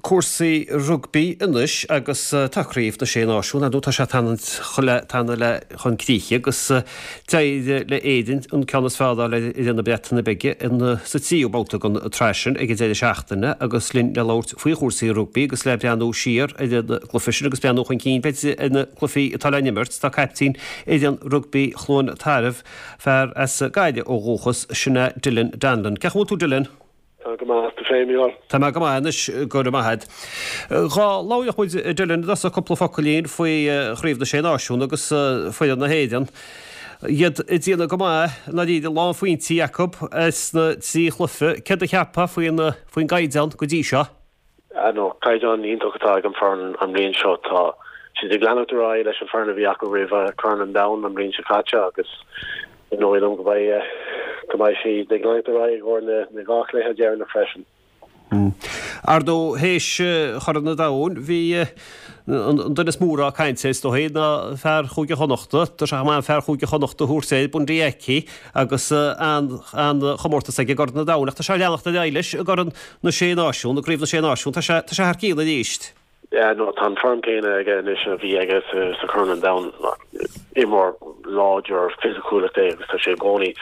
Cúrsaí rugbaí anois agus tá Craobh na Sé Náisiún, ar ndóigh tá sé ag teannadh le chun críche agus d'éirigh le Éirinn an ceann is fearr a fháil ar fhoireann na Breataine Bige sa tríú babhta den tsraith sin ag an deireadh seachtaine agus linn le labhairt faoi chúrsaí rugbaí agus le breathnú siar ar an gcluiche sin agus breathnú chun cinn b'fhéidir ar na cluichí atá le n-imirt tá caiptín fhoireann rugbaí Chluain Tarbh, fear as Gaillimh ó dhúchas, sin é Dylan Donlon. Cén chaoi a bhfuil tú Dylan? Tá go maith, tú féin, Mícheál? Tá mé go maith anois, go raibh maith agat. Dhá labhródh muid, a Dylan, i dtosach cúpla focailín faoi Chraobh na Sé Náisiún agus foireann na hÉireann. Iad ag déanamh go maith, i ndáiríre, lán phointí acu sna trí chluiche. Céard a cheapfá faoin faoin gcaighdeán go dtí seo? Ah no, caighdeán iontach atá ag an foireann an bhliain seo. Tá siad ag leanacht ar aghaidh leis an foireann a bhí acu roimh Chorn an Domhain an bhliain seo caite agus is dóigh liom go mbeidh go mbeidh siad ag leanacht ar aghaidh i gcomhair na na dhá chluiche deireanach freisin. Ar ndóigh, théis Chorn an Domhain, bhí an duine is mó a raibh caint air, is dóigh, ná fear Chúige Chonnachta. Tá sé chomh maith fear Chúige Chonnachta a thabhairt air, Bundee Aki, agus an-chomórtas aige i gCorn an Domhain. Ach tá sé ag leanacht ar aghaidh leis i gCorn na Sé Náisiún, i gCraobh na Sé Náisiún. Tá sé, tá sé thar cionn arís. Yeah, no, tá an form céanna aige anois a bhí aige sa Chorn an Domhain. Imreoir láidir fisiciúil é agus tá sé i gcónaí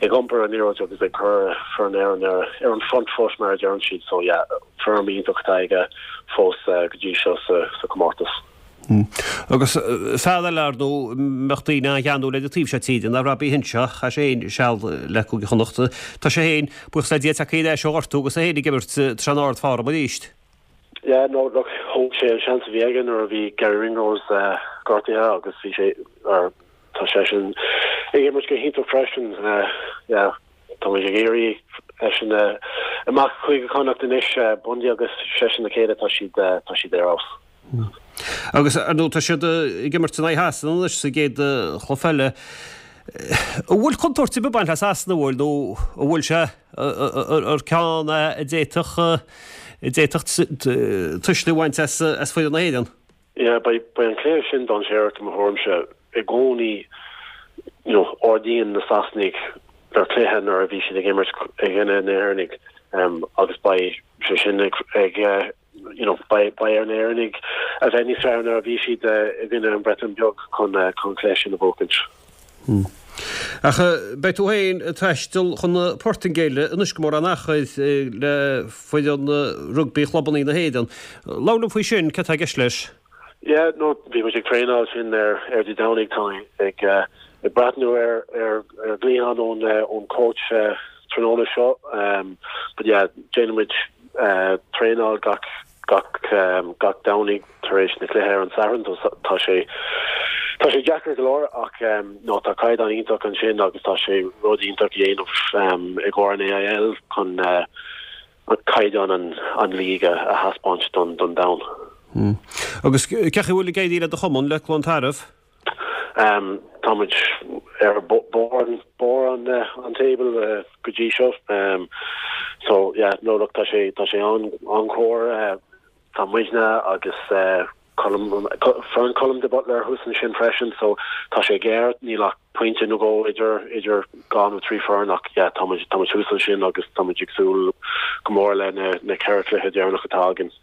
ag iompar an liathróid agus ag cur foireann Éireann ar ar an front foot mar a deireann siad. So yeah, form iontach atá aige fós go dtí seo sa sa comórtas. Agus fear eile ar ndóigh a mbeadh daoine an-gheanúil air an taobh seo tíre ná Robbie Henshaw, chaith sé féin seal le Cúige Chonnacht. Tá sé féin, buíochas le Dia, tagtha ar ais ó ghortú agus é féin ag imirt, tá sé in ard-form arís. Yeah, no, look, thóg sé an seans a bhí aige nuair a bhí Garry Ringrose gortaithe agus bhí sé, or tá seisean ag imirt go hiontach freisin. Yeah, tá muid ag iarraidh eisean amach Chúige Chonnacht anois, Bundee agus seisean le chéile, tá siad, tá siad ar fheabhas. Agus ar ndóigh tá siad ag imirt in aghaidh Shasana anois sa gcéad chluiche eile. An bhfuil contúirt ar bith ag baint le Sasana, an bhfuil, nó an bhfuil sé ar ceann a d'fhéadfadh a d'fhéadfadh tuisle a bhaint as foireann na hÉireann? Yeah, beidh beidh an cluiche sin dainséarach i mo thuairimse. I gcónaí, you know, ardaíonn na Sasanaigh ar chluiche nuair a bhí siad ag imirt i gcoinne na hÉireannaigh agus beidh sé sin ag ag you know, beidh ar na hÉireannaigh a bheith níos fearr ná a bhí siad i gcoinne an Bhreatain Bheag chun chun cluiche sin a bhuachaint. Ach beidh tú féin ag taisteal chun na Portaingéile anois gan mórán achair le foireann rugbaí chlubanna na hÉireann. Labhair liom faoi sin, céard atá i gceist leis? Yeah, no, bhí muid ag traenáil sin ar ar Dé Domhnaigh, tá mé ag ag breathnú ar ar ar ghlaoch ón ón coach tráthnóna seo. But yeah, déanann muid traenáil gach gach gach Domhnaigh tar éis na cluiche ar an Satharn. Tá sé tá sé deacair go leor ach no tá caighdeán iontach ansin agus tá sé rud iontach a dhéanamh i gcomhair an AIL chun caighdeán an an league a thaispeáint don don domhan. Agus cén chaoi a bhfuil ag éirí le do chumann, le Cluain Tarbh? Tá muid ar barr barr an an table go dtí seo. So yeah, no look tá sé tá sé an an-chóir. Tá muidne agus Colm foireann Colm de Butler thuas ansin freisin so tá sé géar, níl ach pointe nó dhó idir idir dhá nó trí foireann ach yeah tá muid tá muid thuas ansin agus tá muid ag súil go mór le na na ceithre chluiche deireanach atá againn.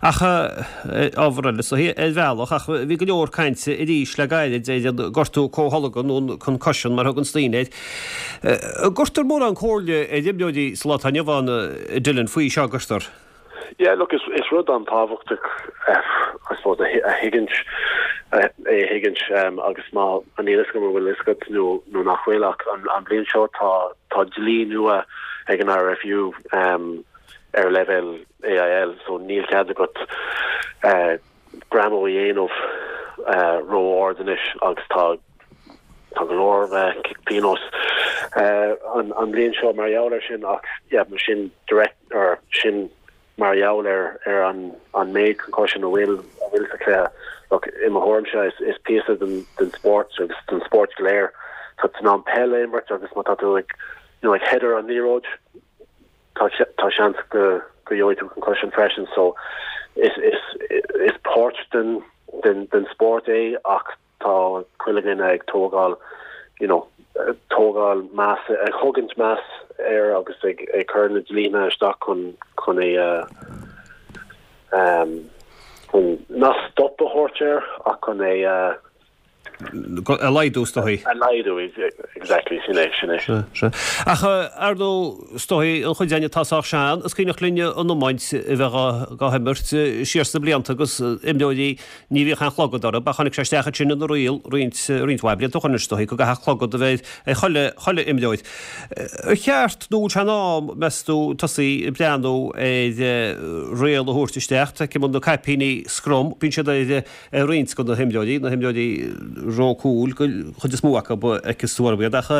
Ach ábhar eile, so ar bhealach, ach bhí go leor cainte arís le gairid ar an gortú comhtholgtha nó an concussion mar a thuganns daoine air. An gcuirtear mórán comhairle ar imreoirí sa lá atá inniu ann, Dylan, faoi seo, an gcuirtear? Yeah, look, is is rud an-tábhachtach I suppose a a thuigint é a thuigint agus má níl fhios agam an bhfuil fhios agat nó nó nach bhfuil ach an an bhliain seo tá tá dlí nua ag an IRFU ar leibhéal AIL so níl cead agat greamú a dhéanamh ró-ard anois agus tá tá go leor cic pionóis an an bhliain seo mar gheall ar sin ach yeah mar sin direct or sin mar gheall ar ar an an méid concussion a bhfuil a bhfuil sa chluiche. Look i mo thuairimse is is píosa den den spórt agus den spórt go léir. Tá tú in ann peil a imirt agus má tá tú ag you know ag header an liathróid tá tá seans go go gheobhaidh tú concussion freisin so is is is páirt den den den spórt é ach tá chuile dhuine ag tógáil you know tógáil meas ag thugaint meas air agus ag ag cur na dlíthe isteach chun chun é a. Chun nach stop a thabhairt air ach chun é a. A laghdú, is dóigh. A laghdú, exactly, sin é, sin é. Sea, sea. Ach, ar ndóigh, is dóigh, an chuid againn atá sách sean, is cuimhneach linn an iomáint a bheith á himirt siar sna blianta agus imreoirí, ní bhíodh aon chlogad orthu, ach tháinig sé isteach ansin ina riail roinnt, roinnt mhaith blianta ó shoin, is dóigh, go gcaithfeadh clogad a bheith ar chuile, chuile imreoir. Ar cheart nó bhfuil sé in am, meas tú, tosaí ag breathnú ar riail a thabhairt isteach, feicim na caipíní scrum, bíonn siad ar, ar roinnt de na himreoirí, na himreoirí ró cúil, an chuid is mó acu, feiceas tú orthu iad, ach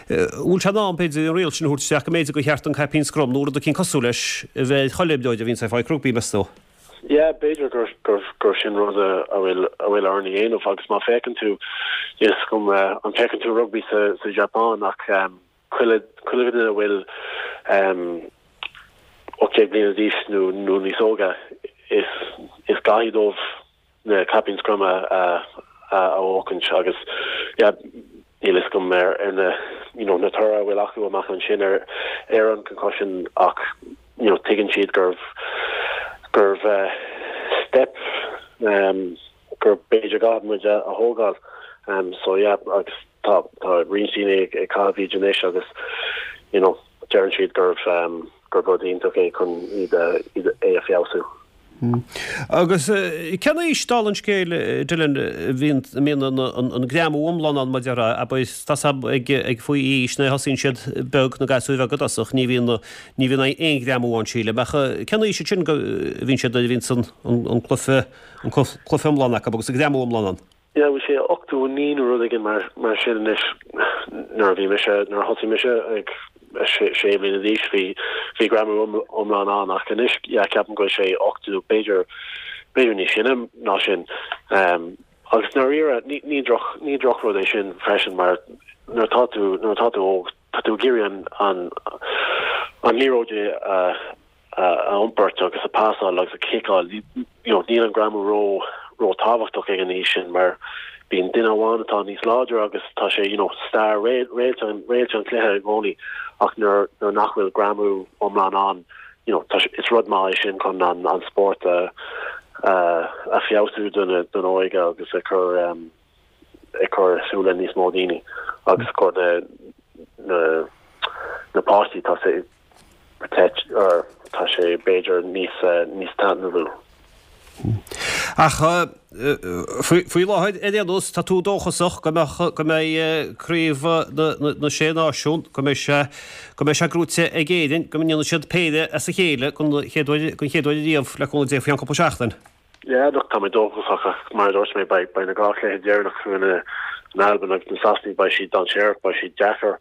bhfuil sé in am, b'fhéidir, an riail sin a thabhairt isteach go mb'fhéidir gur cheart an caipín scrum nó rud eicínt cosúil leis a bheith ar chuile imreoir a bhíonns ag fáil rugbaí, meas tú? Yeah, b'fhéidir gur, gur, gur sin rud a, a bhfuil, a bhfuil orainn a dhéanamh agus má féachann tú, níl a fhios agam an féachann tú rugbaí sa, sa Japan ach chuile, chuile dhuine a bhfuil 18 bliana d'aois nó, nó níos óige, is, is caithfidh dóibh na caipín scrum a, a, a bhuachaint agus yeah, níl a fhios agam ar, ar na, you know, na toradh a bhfuil acu amach ansin ar, ar an concussion ach you know, tuigeann siad gurbh, gurbh step um, gur b'fhéidir go gcaithfidh muid a thógáil. So yeah, agus tá tá roinnt daoine ag ag caitheamh iad anois agus you know deireann siad gurbh gurb rud iontach é chun iad a iad é a feabhsú. Agus cén aois, dála an scéil, Dylan, a bhíonn a mbíonn an an an greamú iomlán ann mar a déarfá, abair, tá a fhios agam ag ag faoi aois nuair a thosaíonn siad beag na gasúir bheaga i dtosach, ní bhíonn ní bhíonn aon ghreamú ann sílim, ach cén aois ansin go a bhíonn siad nuair a bhíonns an an an cluiche an cluiche iomlán acu agus an greamú iomlán ann. Yeah, bhí sé 89 nó rud éigin mar mar sin anois nuair a bhí mise, nuair a thosaigh mise ag sé bliana d'aois bhí bhí greamú iomlán ann ach anois yeah ceapaim go bhfuil sé 80 b'fhéidir b'fhéidir níos sine ná sin. Um, agus ndáiríre ní ní droch ní drochrud é sin freisin mar nuair atá tú nuair atá tú óg tá tú ag iarraidh an an an liathróid a a iompairt agus a pasáil agus a chiceáil, you know, níl an greamú ró, ró tábhachtach ag an aois sin mar bíonn duine amháin atá níos láidre agus tá sé, you know, star, réalt an, réalt an chluiche i gcónaí ach nuair, nuair nach bhfuil greamú iomlán ann, you know, tá sé, is rud maith é sin chun an, an spórt a, a, a feabhsú don, don óige agus a chur, um, ag cur i súile níos mó daoine agus cur na, na, na páistí, tá sé, protect or tá sé b'fhéidir níos níos taitneamhaí. Ach faoi láthair ar aon nós tá tú dóchasach go mbeadh go mbeidh craobh na na Sé Náisiún go mbeidh sé go mbeidh sé gnóite ag Éirinn go ndéanfaidh siad péire as a chéile don chéad uair don chéad uair ariamh le cúnamh Dé faoi cheann cúpla seachtain. Yeah, look, tá mé dóchasach ach mar a dúirt mé, beidh beidh na dhá chluiche deireanach i gcoinne na Alban agus na Sasanaigh, beidh siad dainséarach, beidh siad deacair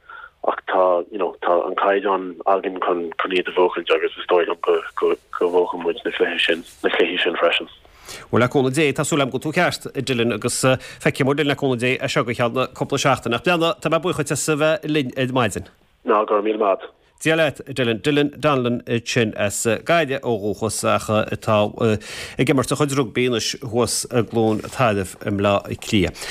ach tá, you know, tá an caighdeán againn chun chun iad a bhuachaint agus is dóigh liom go go go mbuafaidh muid na cluiche sin, na cluichí sin freisin. Bhuel, le cúnamh Dé, tá súil agam go bhfuil tú ceart, a Dylan, agus feicfidh muid linn le cúnamh Dé as seo go ceann cúpla seachtain. Ach breathnaigh, tá mé buíoch duit as a bheith linn ar maidin. Ná go raibh míle maith. Dia leat, Dylan. Dylan Donnellan ansin as Gaillimh ó dhúchas ach atá ag imirt a chuid rugbaí anois thuas i gCluain Tarbh i mBleá Cliath.